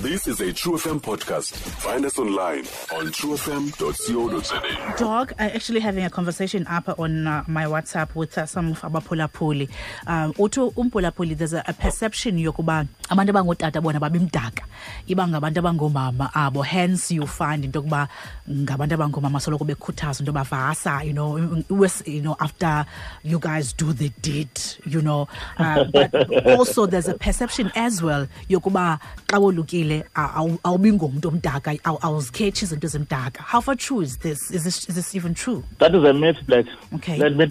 This is a True FM podcast. Find us online on truefm.co.za. Dog, I actually having a conversation up on my WhatsApp with some of abaphulaphuli. Uthi umphulaphuli, there's a perception yokuba abantu abangotata bona babimdaka, iba ngabantu abangomama abo. Hence you find into yokuba ngabantu abangomama soloko bekhuthazwa into yoba vasa, after you guys do the deed. But also there's a perception as well yokuba xa wolukile awubi ngumntu omdaka, awuzikhetshi izinto ezimdaka. How far true is this? Is this even true? That is a myth, Black. Let me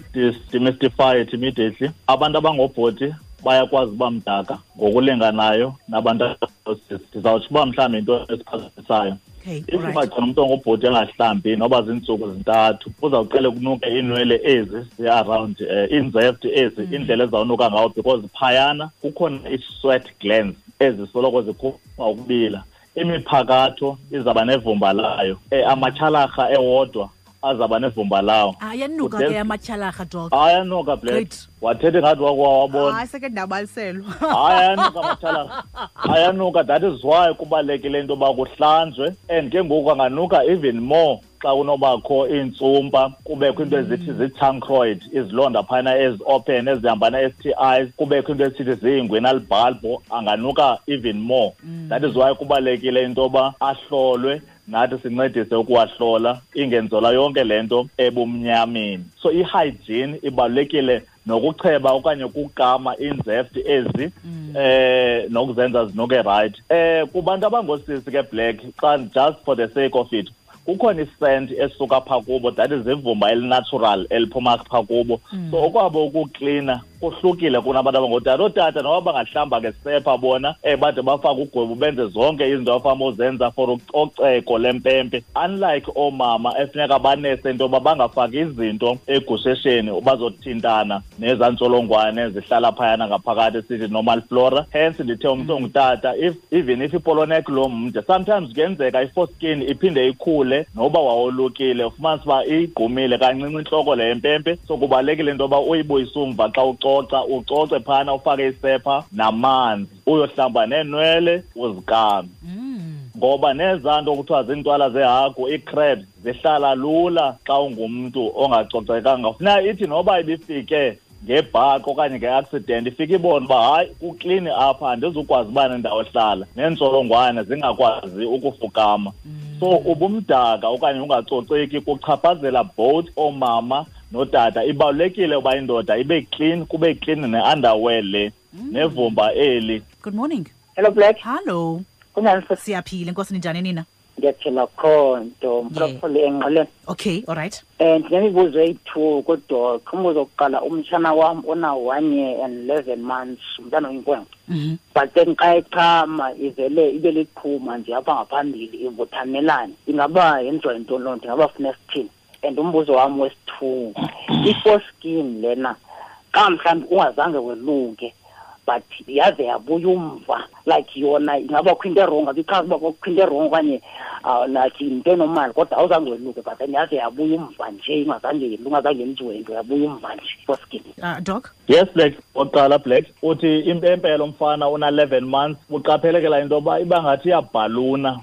demystify it immediately. Abantu abangobhoti bayakwazi uba mdaka ngokulinganayo nabantu abangosisi. Ndizawutsho uba mhlawumbi into esiphazamisayo. If ungagcina umntu ongubhuti engahlambi noba ziintsuku zintathu, uzawuqale kunuke iinwele ezi zi-around iinzeft ezi, indlela ezawunuka ngawo, because phayana kukhona i-sweat glands ezisoloko zikhupha ukubila. Imiphakatho izawuba nevumba layo, amatyhalarha ewodwa azawuba nevumba lawo. Ayanuka ke amatyhalarha, Dog. Ayanuka, Black. Great. Wathetha ingathi wakwawabona. Hayi, seke ndabaliselwa. Hayi, ayanuka amatyhalarha, ayanuka. That is why kubalulekile into yoba kuhlanjwe, and ke ngoku anganuka even more xa kunobakho iintsumpa, kubekho into ezithi zii-chancroid, izilonda phana ezi-open ezihamba na-STIs, kubekho into esithi zii-inguinal bulb, anganuka even more. That is why kubalulekile into yoba ahlolwe, nathi sincedise ukuwahlola, ingenzelwa yonke le nto ebumnyameni. So i-hygiene ibalulekile, nokucheba okanye ukukama iinzeft ezi, nokuzenza zinuke right. Kubantu abangosisi ke, Black, xa just for the sake of it, kukhona iscent esuka phaa kubo, that is ivumba elinatural eliphuma phaa kubo. So okwabo ukuklina kuhlukile kunabantu abangootata. Ootata noba bangahlamba ngesepha bona, bade bafake ugwebu, benze zonke izinto abafama uzenza for ucoceko lempempe, unlike oomama efuneka banese into yoba bangafaki izinto egushesheni, bazothintana nezaa ntsholongwane zihlala phayana ngaphakathi, sithi normal flora. Hence ndithe umntu ongutata, if even if ipolo neck lo mde, sometimes kuyenzeka i-foreskin iphinde ikhule noba wawolukile, ufumanise uba iyigqumile kancinci intloko le yempempe. So kubalulekile into yoba uyibuyise umva xa ucoca, ucoce phana, ufake isepha namanzi, uyohlamba neenwele, uzikame, ngoba nezaa nto kuthiwa ziintwala zehagu, ii-crabs, zihlala lula xa ungumntu ongacocekanga. Funeka ithi noba ibifike ngebhaqo okanye nge-accident, ifike ibone uba hayi, kuklini apha, andizukwazi uba nendawo ehlala, neentsholongwane zingakwazi ukufukama. So ubumdaka okanye ungacoceki kuchaphazela both oomama notata. Ibalulekile uba indoda ibe clean, kube clean ne-underwear le, nevumba eli. Good morning. Hello, Black. Hello. Kunjani, sis? Siyaphila, inkosi. Ninjani nina? Ndiyaphila khonto. Mphulaphuli engqeleni. Okay, all right. Ndinemibuzo eyi-two kuDoc. Umbuzo wokuqala, umtshana wam ona 1 year and 11 months, umntana oyinkwenkwe. But then xa echama ivele ibe liqhuma nje apha ngaphambili, ivuthamelane. Ingaba yenziwa yintoni loo nto? Ingaba funa sithini? And umbuzo wam wesi-two, i-foreskin lena, xa mhlawumbi ungazange weluke but yaze yabuya umva, like yona ingaba kho into e-wrong? Abichaza uba kukho into e-wrong okanye like yinto enormal, kodwa awuzange weluke but then yaze yabuya umva nje, ingazange yenziwe into, yabuya umva nje, foreskin. Doc? Yes, Black. Oqala, Black, uthi impempe lo mfana una-11 months, uqaphelekela into yoba iba ngathi iyabhaluna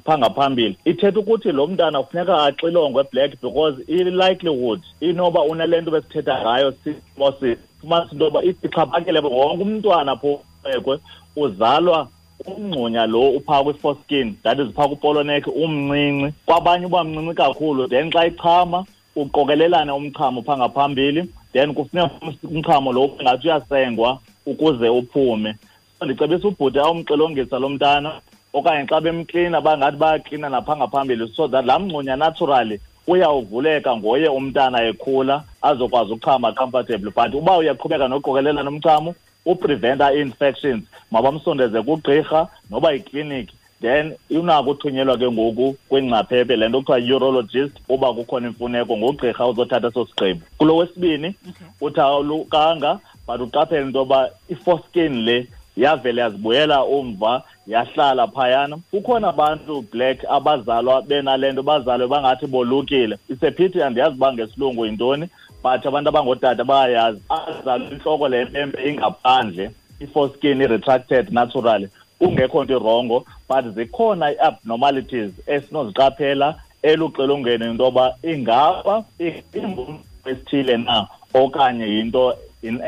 phaa ngaphambili. Ithetha ukuthi lo mntana kufuneka axilongwe, Black, because i-likelihood inoba unale nto besithetha ngayo, simosis. Fumanisa into yoba ixhaphakile, wonke umntwana phekwe uzalwa umngxunya lo uphaa kwi-foreskin, that is phaa kupolo neck, umncinci, kwabanye uba mncinci kakhulu. Then xa ichama uqokelelane umchamo phaa ngaphambili, then kufuneka umchamo lo ngathi uyasengwa ukuze uphume. So ndicebisa ubhuti awumxilongisa lo mntana, okanye xa bemklina bangathi bayaklina napha ngaphambili, so that laa mngxunya naturally uyawuvuleka ngoye umntana ekhula, azokwazi ukuchama comfortable. But uba uyaqhubeka noqokelelana umchamo, upreventa ii-infections, mabamsondeze kugqirha noba yikliniki, then unako uthunyelwa ke ngoku kwingcaphephe, le nto kuthiwa urologist, uba kukhona imfuneko, ngugqirha uzothatha eso sigqibo. Kulo wesibini, uthi awulukanga but uqaphele into yoba i-foreskin le yavele yazibuyela umva, yahlala phayana. Kukhona abantu, Black, abazalwa benale nto, bazalwe bangathi bolukile. Isephithi, andiyazi uba ngesilungu yintoni, but abantu abangootata bayayazi. Azalwe intloko le mpempe ingaphandle, i-foreskin i-retracted naturally. Kungekho nto i-wrong, but zikhona i-abnormalities esinoziqaphela eluxilongeni into yoba ingaba esithile na okanye yinto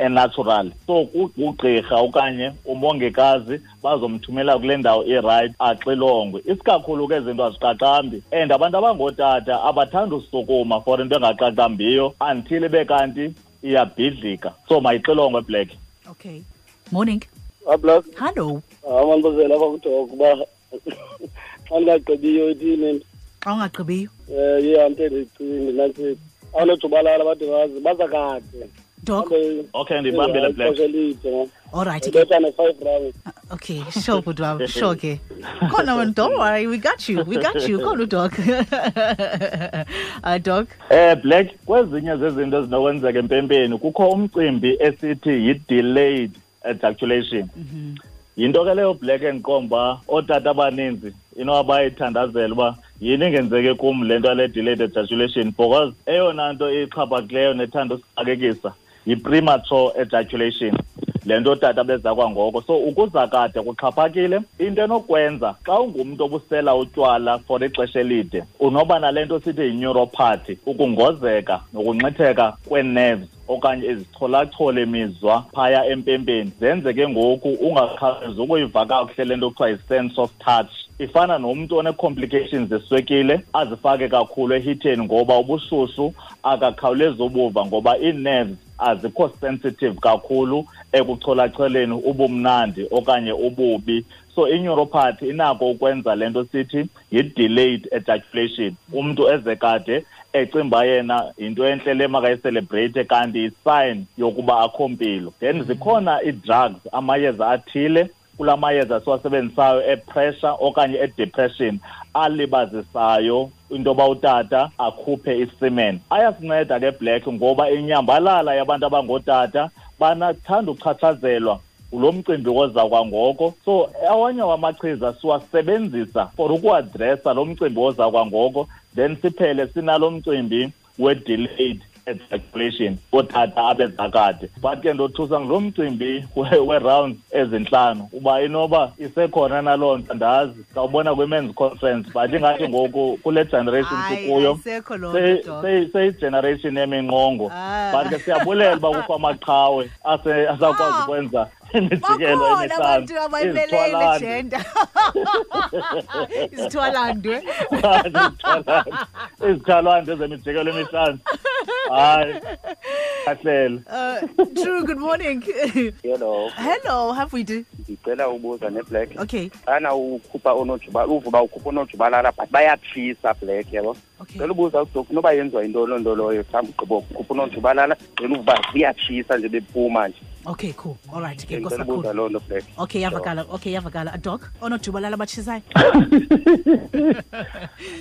natural. So ugqirha okanye umongikazi bazomthumela kule ndawo i-right axilongwe. Isikakhulu ke izinto aziqaqambi, and abantu abangootata abathanda usukuma for into engaqaqambiyo until ibe kanti iyabhidlika. So mayixilongwe, Black. Okay. Morning. Black. Hello. Amandibuzela apha kuDoc uba xa ndingagqibiyo ithini. Xa ungagqibiyo? Iya nto endiyicingi nantsi, awunojubalala bade bazi baza kade. Doc. Okay, ndibambile, Black. All right ke. Betha ne-5 round. Okay, sure, bhuti wam, sure ke. Khona wena, don't worry, we got you. We got you. Khona uDoc. Doc. Black, kwezinye zezinto ezinokwenzeka empempeni kukho umcimbi esithi yi-delayed ejaculation. Yinto ke leyo, Black, endiqomba ootata abaninzi inoba bayithandazela uba yini ingenzeke kum le nto yale delayed ejaculation, because eyona nto ixhaphakileyo nethanda usixakekisa yi-premature ejaculation, le nto tata beza kwangoko. So ukuza kade kuxhaphakile. Into enokwenza, xa ungumntu obusela utywala for ixesha elide, unoba nale nto sithi yi-neuropathy, ukungozeka nokunxitheka kwee-nerves okanye izicholachole mizwa phaya empempeni, zenze ke ngoku ungakhawulezi ukuyiva kakuhle le nto kuthiwa yi-sense of touch. Ifana nomntu one-complications zeswekile azifake kakhulu ehitheni, ngoba ubushushu akakhawulezi ubuva, ngoba ii-nerves azikho sensitive kakhulu ekucholacholeni ubumnandi okanye ububi. So i-neuropathy inako ukwenza le nto sithi yi-delayed ejaculation, umntu eze kade ecimba yena yinto entle le makayi-celebrate, kanti yi-sign yokuba akho mpilo. Then zikhona ii-drugs, amayeza athile, kula mayeza siwasebenzisayo e-pressure okanye e-depression, alibazisayo into yoba utata akhuphe i-semen. Ayasinceda ke, Black, ngoba inyambalala yabantu abangootata banathanda uchatshazelwa ngulo mcimbi woza kwangoko. So awanye wamachiza siwasebenzisa for uku-addressa lo mcimbi woza kwangoko, then siphele sinalo mcimbi we-delayed ejaculation, ootata abeza kade. But ke ndothusa ngulo mcimbi we-rounds ezintlanu, uba inoba isekhona naloo nto, andazi, sawubona kwi-men's conference. But ingathi ngoku kule generation sikuyo ayisekho loo nto, Doc. Seyi-generation yeminqongo. Ah. But ke siyabulela uba kukho amaqhawe asakwazi ukwenza imijikelo Bakhona emihlanu. abantu abayimeleyo le Izithwalandwe. gender. Izithwalandwe. Izithwalandwe zemijikelo emihlanu, hayi, kahlele. True, good morning. Hello. Hello, have we do? Ndicela ubuza ne-Black. Okay. Xana ukhupha onojuba, uvuba ukhupha onojubalala, but bayatshisa, Black, yabo. Cela ubuza uDoc noba yenziwa yintoni loo nto loyo, mhlawumbi ugqiba ukhupha unojubalala, then uvuba ziyatshisa nje bephuma nje. Okay, cool. All right, ke Ndicela nkosi ubuza kakhulu. loo nto, Black. Okay, yavakala. Okay, yavakala. Doc, onojubalala batshisayo.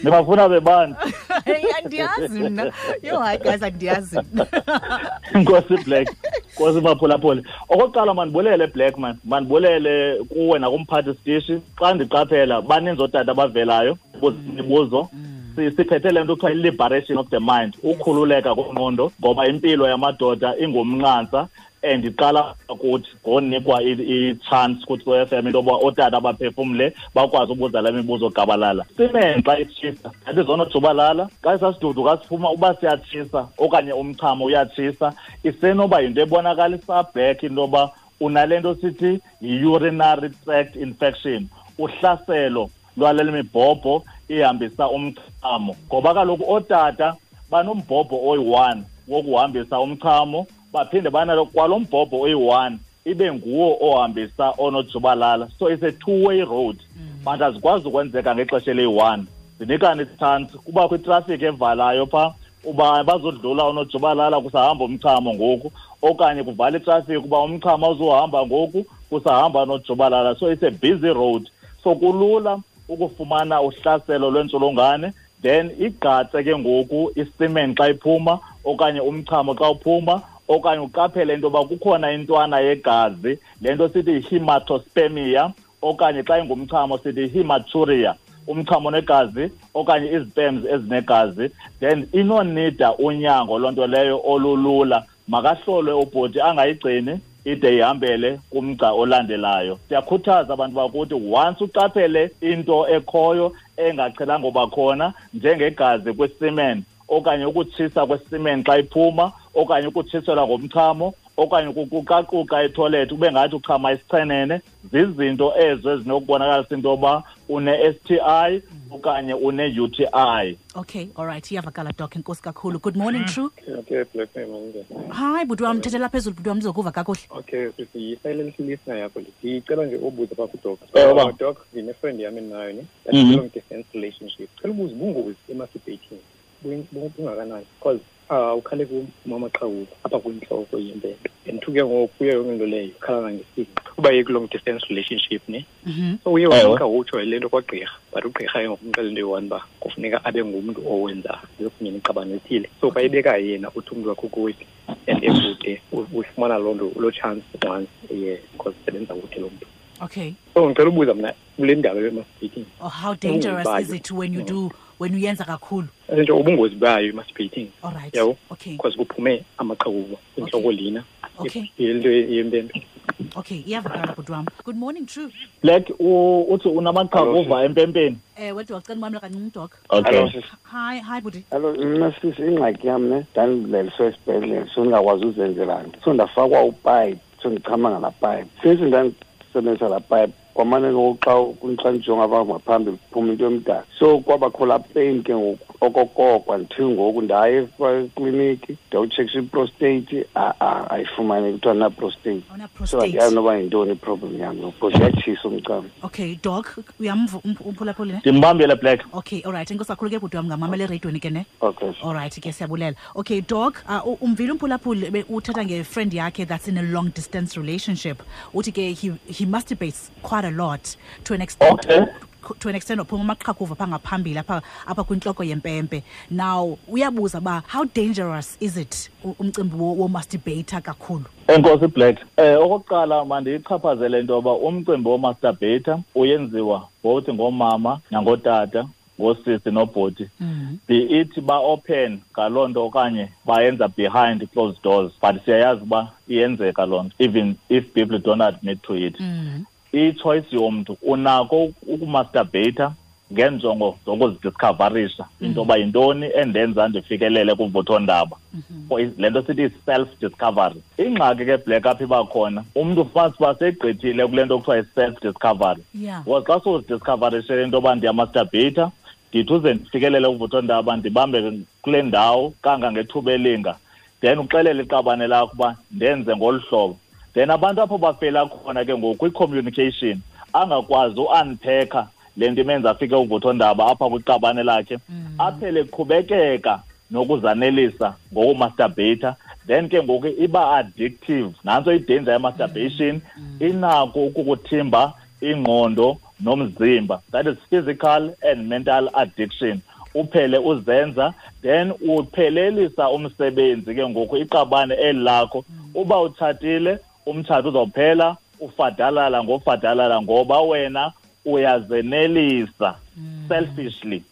Nibafuna bebani? Hey, andiyazi mna. Yo, hayi guys, andiyazi mna. Nkosi, Black, nkosi maphulaphula. Okokuqala mandibulele, Black man, mandibulele kuwe nakumphathi sitishi. Xa ndiqaphela baninzi ootata abavelayo buza imibuzo. Siphethe le nto kuthiwa i-liberation of the mind, ukhululeka kwengqondo, ngoba impilo yamadoda ingumnqantsa and iqala kuthi ngonikwa i-chance kuthi kwe-FM into yoba ootata baphefumle, bakwazi ubuza la mibuzo gabalala. Semen xa itshisa, that is onojubalala, xa isasidudu kasiphuma uba siyatshisa okanye umchamo uyatshisa, isenoba yinto ebonakalisa, Black, into yoba unale nto sithi yi-urinary tract infection, uhlaselo lwale mibhobho ihambisa umchamo, ngoba kaloku ootata banombhobho oyi-1 wokuhambisa umchamo, baphinde banalo kwalo mbhobho oyi-1 ibe nguwo ohambisa onojubalala. So it's a two way road, but azikwazi ukwenzeka ngexesha eliyi-1. Zinikane i-chance, kubakho itrafiki evalayo phaa uba bazodlula onojubalala kusahamba umchamo ngoku, okanye kuvala itrafiki uba umchamo awuzuhamba ngoku kusahamba onojubalala. So it's a busy road, so kulula ukufumana uhlaselo lwentsholongwane. Then igqatse ke ngoku i-semen xa iphuma okanye umchamo xa uphuma, okanye uqaphele into yoba kukhona intwana yegazi, le nto sithi yi-hematospermia, okanye xa ingumchamo sithi yi-hematuria, umchamo negazi okanye izi-sperms ezinegazi. Then inonida unyango loo nto leyo olulula, makahlolwe ubhuti, angayigcini. ide ihambele kumgca olandelayo. Siyakhuthaza abantu bakuthi once uqaphele into ekhoyo engaqhelanga uba khona, njengegazi kwi-semen okanye ukutshisa kwe-semen xa iphuma, okanye ukutshiselwa ngomchamo, okanye ukuqukaquka etoilet ube ngathi uchama isichenene, zizinto ezo ezinokubonakalisa into yoba une-STI okanye une-UTI. Okay, all right, iyavakala, Doc. Enkosi kakhulu. Good morning, True. Okay, Black man. Hi, bhuti wam, thethela phezulu bhuti wam, ndizokuva kakuhle. Okay, sisi, yi-silent listener yakho le. Ndicela nje ubuza phaa kuDoc. Ewe. Doc, ndine-friend yam endinayo ne. That's long distance relationship. Cela ubuza ubungozi e-masturbating bungakanani? Because ukhale kumama qhawuka apha kwintloko yempempe. And ke ngoku kuyo yonke into leyo ukhala nangesingqi. Uba ye long distance relationship ne. So uye wanika utsho le nto kwagqirha, but ugqirha ke ngokumxelela into eyi-one uba kufuneka abe ngumntu owenza kunye neqabane ethile. So xa ebeka yena uthi umntu wakho kuwephi and ekude uyifumana loo nto loo chance once a year because usebenza kude loo mntu. Okay. So ngicela ubuza mna kule ndaba ye-masturbating. Oh, how dangerous is it when you do when uyenza kakhulu? Nje ubungozi bayo i-masturbating. All right. Yabo? Okay. Because kuphume amaqhakuva inhloko lena. Okay. Into yempempe. Okay, iyavakala bhuti wam. Good morning, True. Black, uthi unamaqhakuva empempeni? Ewe, wacela umamela kancinci, Doc. Okay. Hello, sis. Hi, bhuti. Hello, mna sisi, ingxaki yam ne, ndandileliswe esibhedlele, so ndingakwazi uzenzela nto. So ndafakwa upipe, so ndichama ngalaa pipe. Since ndandisebenzisa laa pipe, kwamane ngoku xa ndijonga apha ngaphambili kuphuma into yomdaka. So kwabakho laa pain ke ngoku okokoko until ngoku ndaye ekliniki ndiyawutshekisha iprostate, ayifumaneki, kuthiwa ndina-prostate. So andiyazi noba yintoni iproblem yam ngoku because iyatshisa umchamo. Okay, Doc, uyamva umphulaphuli ne? Ndimbambile, Black. Okay, all right. Enkosi kakhulu ke bhuti wam, ngamamela ereyidweni ke ne? Okay. All right ke, siyabulela. Okay, Doc, umvile umphulaphuli uthetha nge-friend yakhe that's in a long distance relationship. Uthi ke he masturbates quite a lot to an extent. Okay. To an extent uphuma amaqhakuva phaa ngaphambili apha kwintloko yempempe. Now uyabuza uba how dangerous is it umcimbi wo-masturbator kakhulu? Enkosi Black. Okokuqala mandiyichaphazele into yoba umcimbi wo-masturbator uyenziwa both ngoomama nangotata, ngosisi nobhuti. Be it ba open ngaloo nto okanye bayenza behind closed doors, but siyayazi uba iyenzeka loo nto even if people don't admit to it. I-choice yomntu, unako ukumasturbata ngenjongo zokuzidiscoverisha into yoba yintoni endenza ndifikelele kuvuthondaba. Le nto sithi self-discovery. Ingxaki ke Black apha iba khona, umntu ufumanisa uba segqithile kule nto kuthiwa yi-self-discovery. Because xa sowuzidiscoverishele into yoba ndiyamasturbata, ndithi uze ndifikelele kuvuthondaba ndibambe kule ndawo kangangethuba elinga, then uxelele iqabane lakho uba ndenze ngolu hlobo. Then abantu apho bafela khona ke ngoku kwi-communication, angakwazi u-unpacka le nto imenza afike uvuthondaba apha kwiqabane lakhe, aphele eqhubekeka nokuzanelisa ngokumasturbata. Then ke ngoku iba addictive. Nantso i-danger ye-masturbation, inako ukukuthimba ingqondo nomzimba. That is physical and mental addiction. Uphele uzenza, then uphelelisa umsebenzi ke ngoku iqabane eli lakho. Uba utshatile, umtshato uzawuphela, ufadalala ngofadalala ngoba wena uyazenelisa selfishly.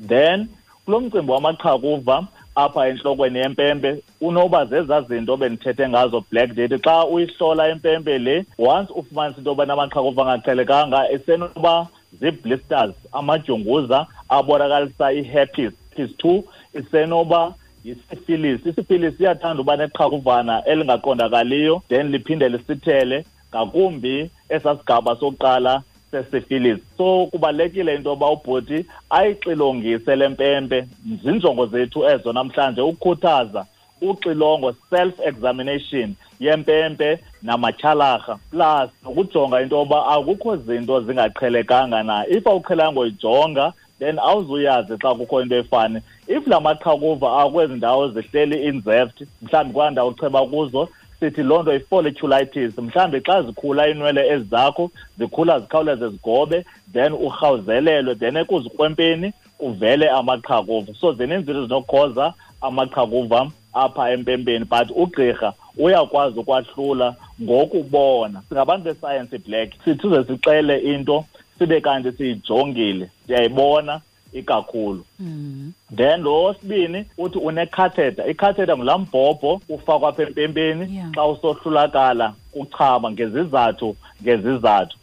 Then kulo mcimbi wamaqhakuva apha entlokweni yempempe, unoba zezaa zinto bendithethe ngazo Black Date. Xa uyihlola impempe le, once ufumanisa into yoba namaqhakuva angaqhelekanga, isenoba zii-blisters, amadyunguza abonakalisa i-herpes 2, isenoba yisifilis. Isifilis iyathanda uba neqhakuvana elingaqondakaliyo, then liphinde lisithele ngakumbi esaa sigaba sokuqala sesifilis. So kubalulekile into yoba ubhuti ayixilongise le mpempe. Zinjongo zethu ezo namhlanje, ukukhuthaza uxilongo, self-examination yempempe namatyhalarha, plus nokujonga into yoba akukho zinto zingaqhelekanga na. If awuqhelanga uyijonga, then awuzuyazi xa kukho into efani. If la maqhakuva akwezi ndawo zihleli inzeft, mhlawumbi kwaa ndawo ucheba kuzo, sithi loo nto i-folliculitis. Mhlawumbi xa zikhula iinwele ezi zakho, zikhula zikhawuleze zigobe, then urhawuzelelwe, then ekuzikrwempeni kuvele amaqhakuva. So zininzi izinto ezinokhoza amaqhakuva apha empempeni, but ugqirha uyakwazi ukwahlula ngokubona. Singabantu besayensi, Black, sithi uze sixele into sibe kanti siyijongile, siyayibona, ikakhulu. Then lo wesibini uthi une-catheter. I-catheter ngulaa mbhobho ufakwa apha empempeni xa usohlulakala kuchama ngezizathu.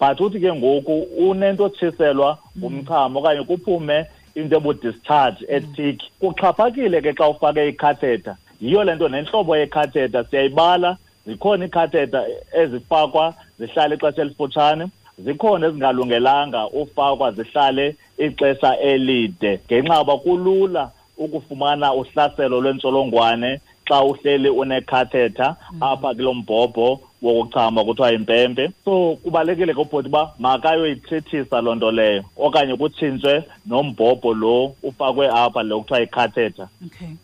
But uthi ke ngoku unento otshiselwa ngumchamo okanye kuphume into ebu-discharge ethick. Kuxhaphakile ke xa ufake i-catheter. Yiyo le nto nentlobo ye-catheter siyayibala. Zikhona ii-catheter ezifakwa zihlale ixesha elifutshane, zikhona ezingalungelanga ufakwa zihlale ixesha elide, ngenxa yoba kulula ukufumana uhlaselo lwentsholongwane xa uhleli une-catheter apha kulo mbhobho wokuchama kuthiwa yimpempe. So kubalulekile ke ubhuti uba makayoyithethisa loo nto leyo, okanye kutshintshwe nombhobho lo ufakwe apha lo kuthiwa yi-catheter.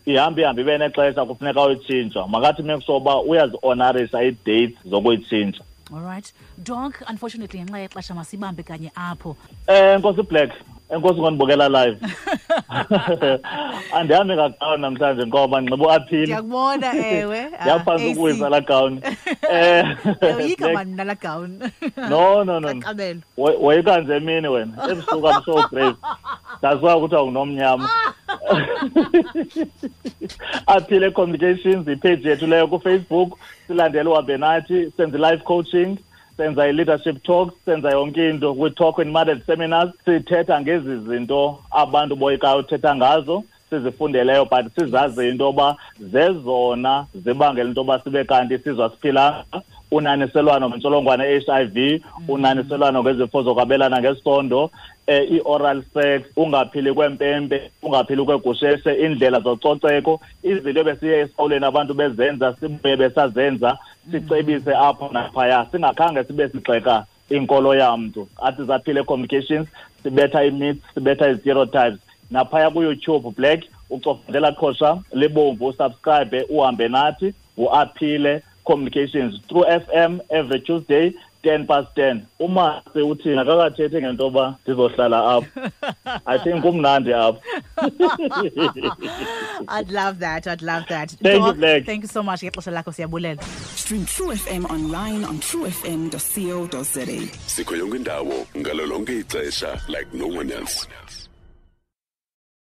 Ihambe ihambe ibe nexesha kufuneka uyitshintshwa. Makathi make sure uba uyazi-honorisa ii-dates zokuyitshintsha. All right. Doc, unfortunately ngenxa yexesha masibambe kanye apho. Nkosi Black, enkosi ngondibukela live. Andihambi ngagawuni namhlanje ngoba ndinxiba uaphile. Ndiyakubona, ewe. Ndiyaphantsi ukuwisa laa gawuni. Yoyika mani mna laa gawuni. No, no, no. Kaqabelo. Woyika nje emini wena. Ebusuku I'm so brave. That's why kuthiwa ngunomnyama. Aphile Communications, ipage yethu leyo kuFacebook. Silandele uhambe nathi, senze live coaching, senza i-leadership talks, senza yonke into. We talk in marriage seminars, sithetha ngezi zinto abantu boyikayo uthetha ngazo, sizifundeleyo, but sizazi into yoba zezona zibangela into yoba sibe kanti sizwa siphila. Unaniselwano ngentsholongwane ye-HIV, unaniselwano ngezifo zokwabelana ngesondo, i-oral sex, ungaphili kwempempe, ungaphili kwegusheshe, iindlela zococeko, izinto ebesiye esikolweni abantu bezenza, sibuye besazenza, sicebise apho naphaya, singakhange sibe sigxeka inkolo yamntu. Athi Zaphile Communications, sibetha ii-myths, sibetha ii-stereotypes. Naphaya kuYouTube Black, ucofundela qhosha libomvu, usubscribe, uhambe nathi, uAphile Communications through FM every Tuesday 10:10. Umasi uthi akakathethi ngento yoba ndizohlala apho. I think kumnandi apho. I'd love that. I'd love that. Thank you, Doc, Black. Thank you so much. Ngexesha lakho siyabulela. Stream True FM online on truefm.co.za. Sikho yonke indawo ngalo lonke ixesha like no one else.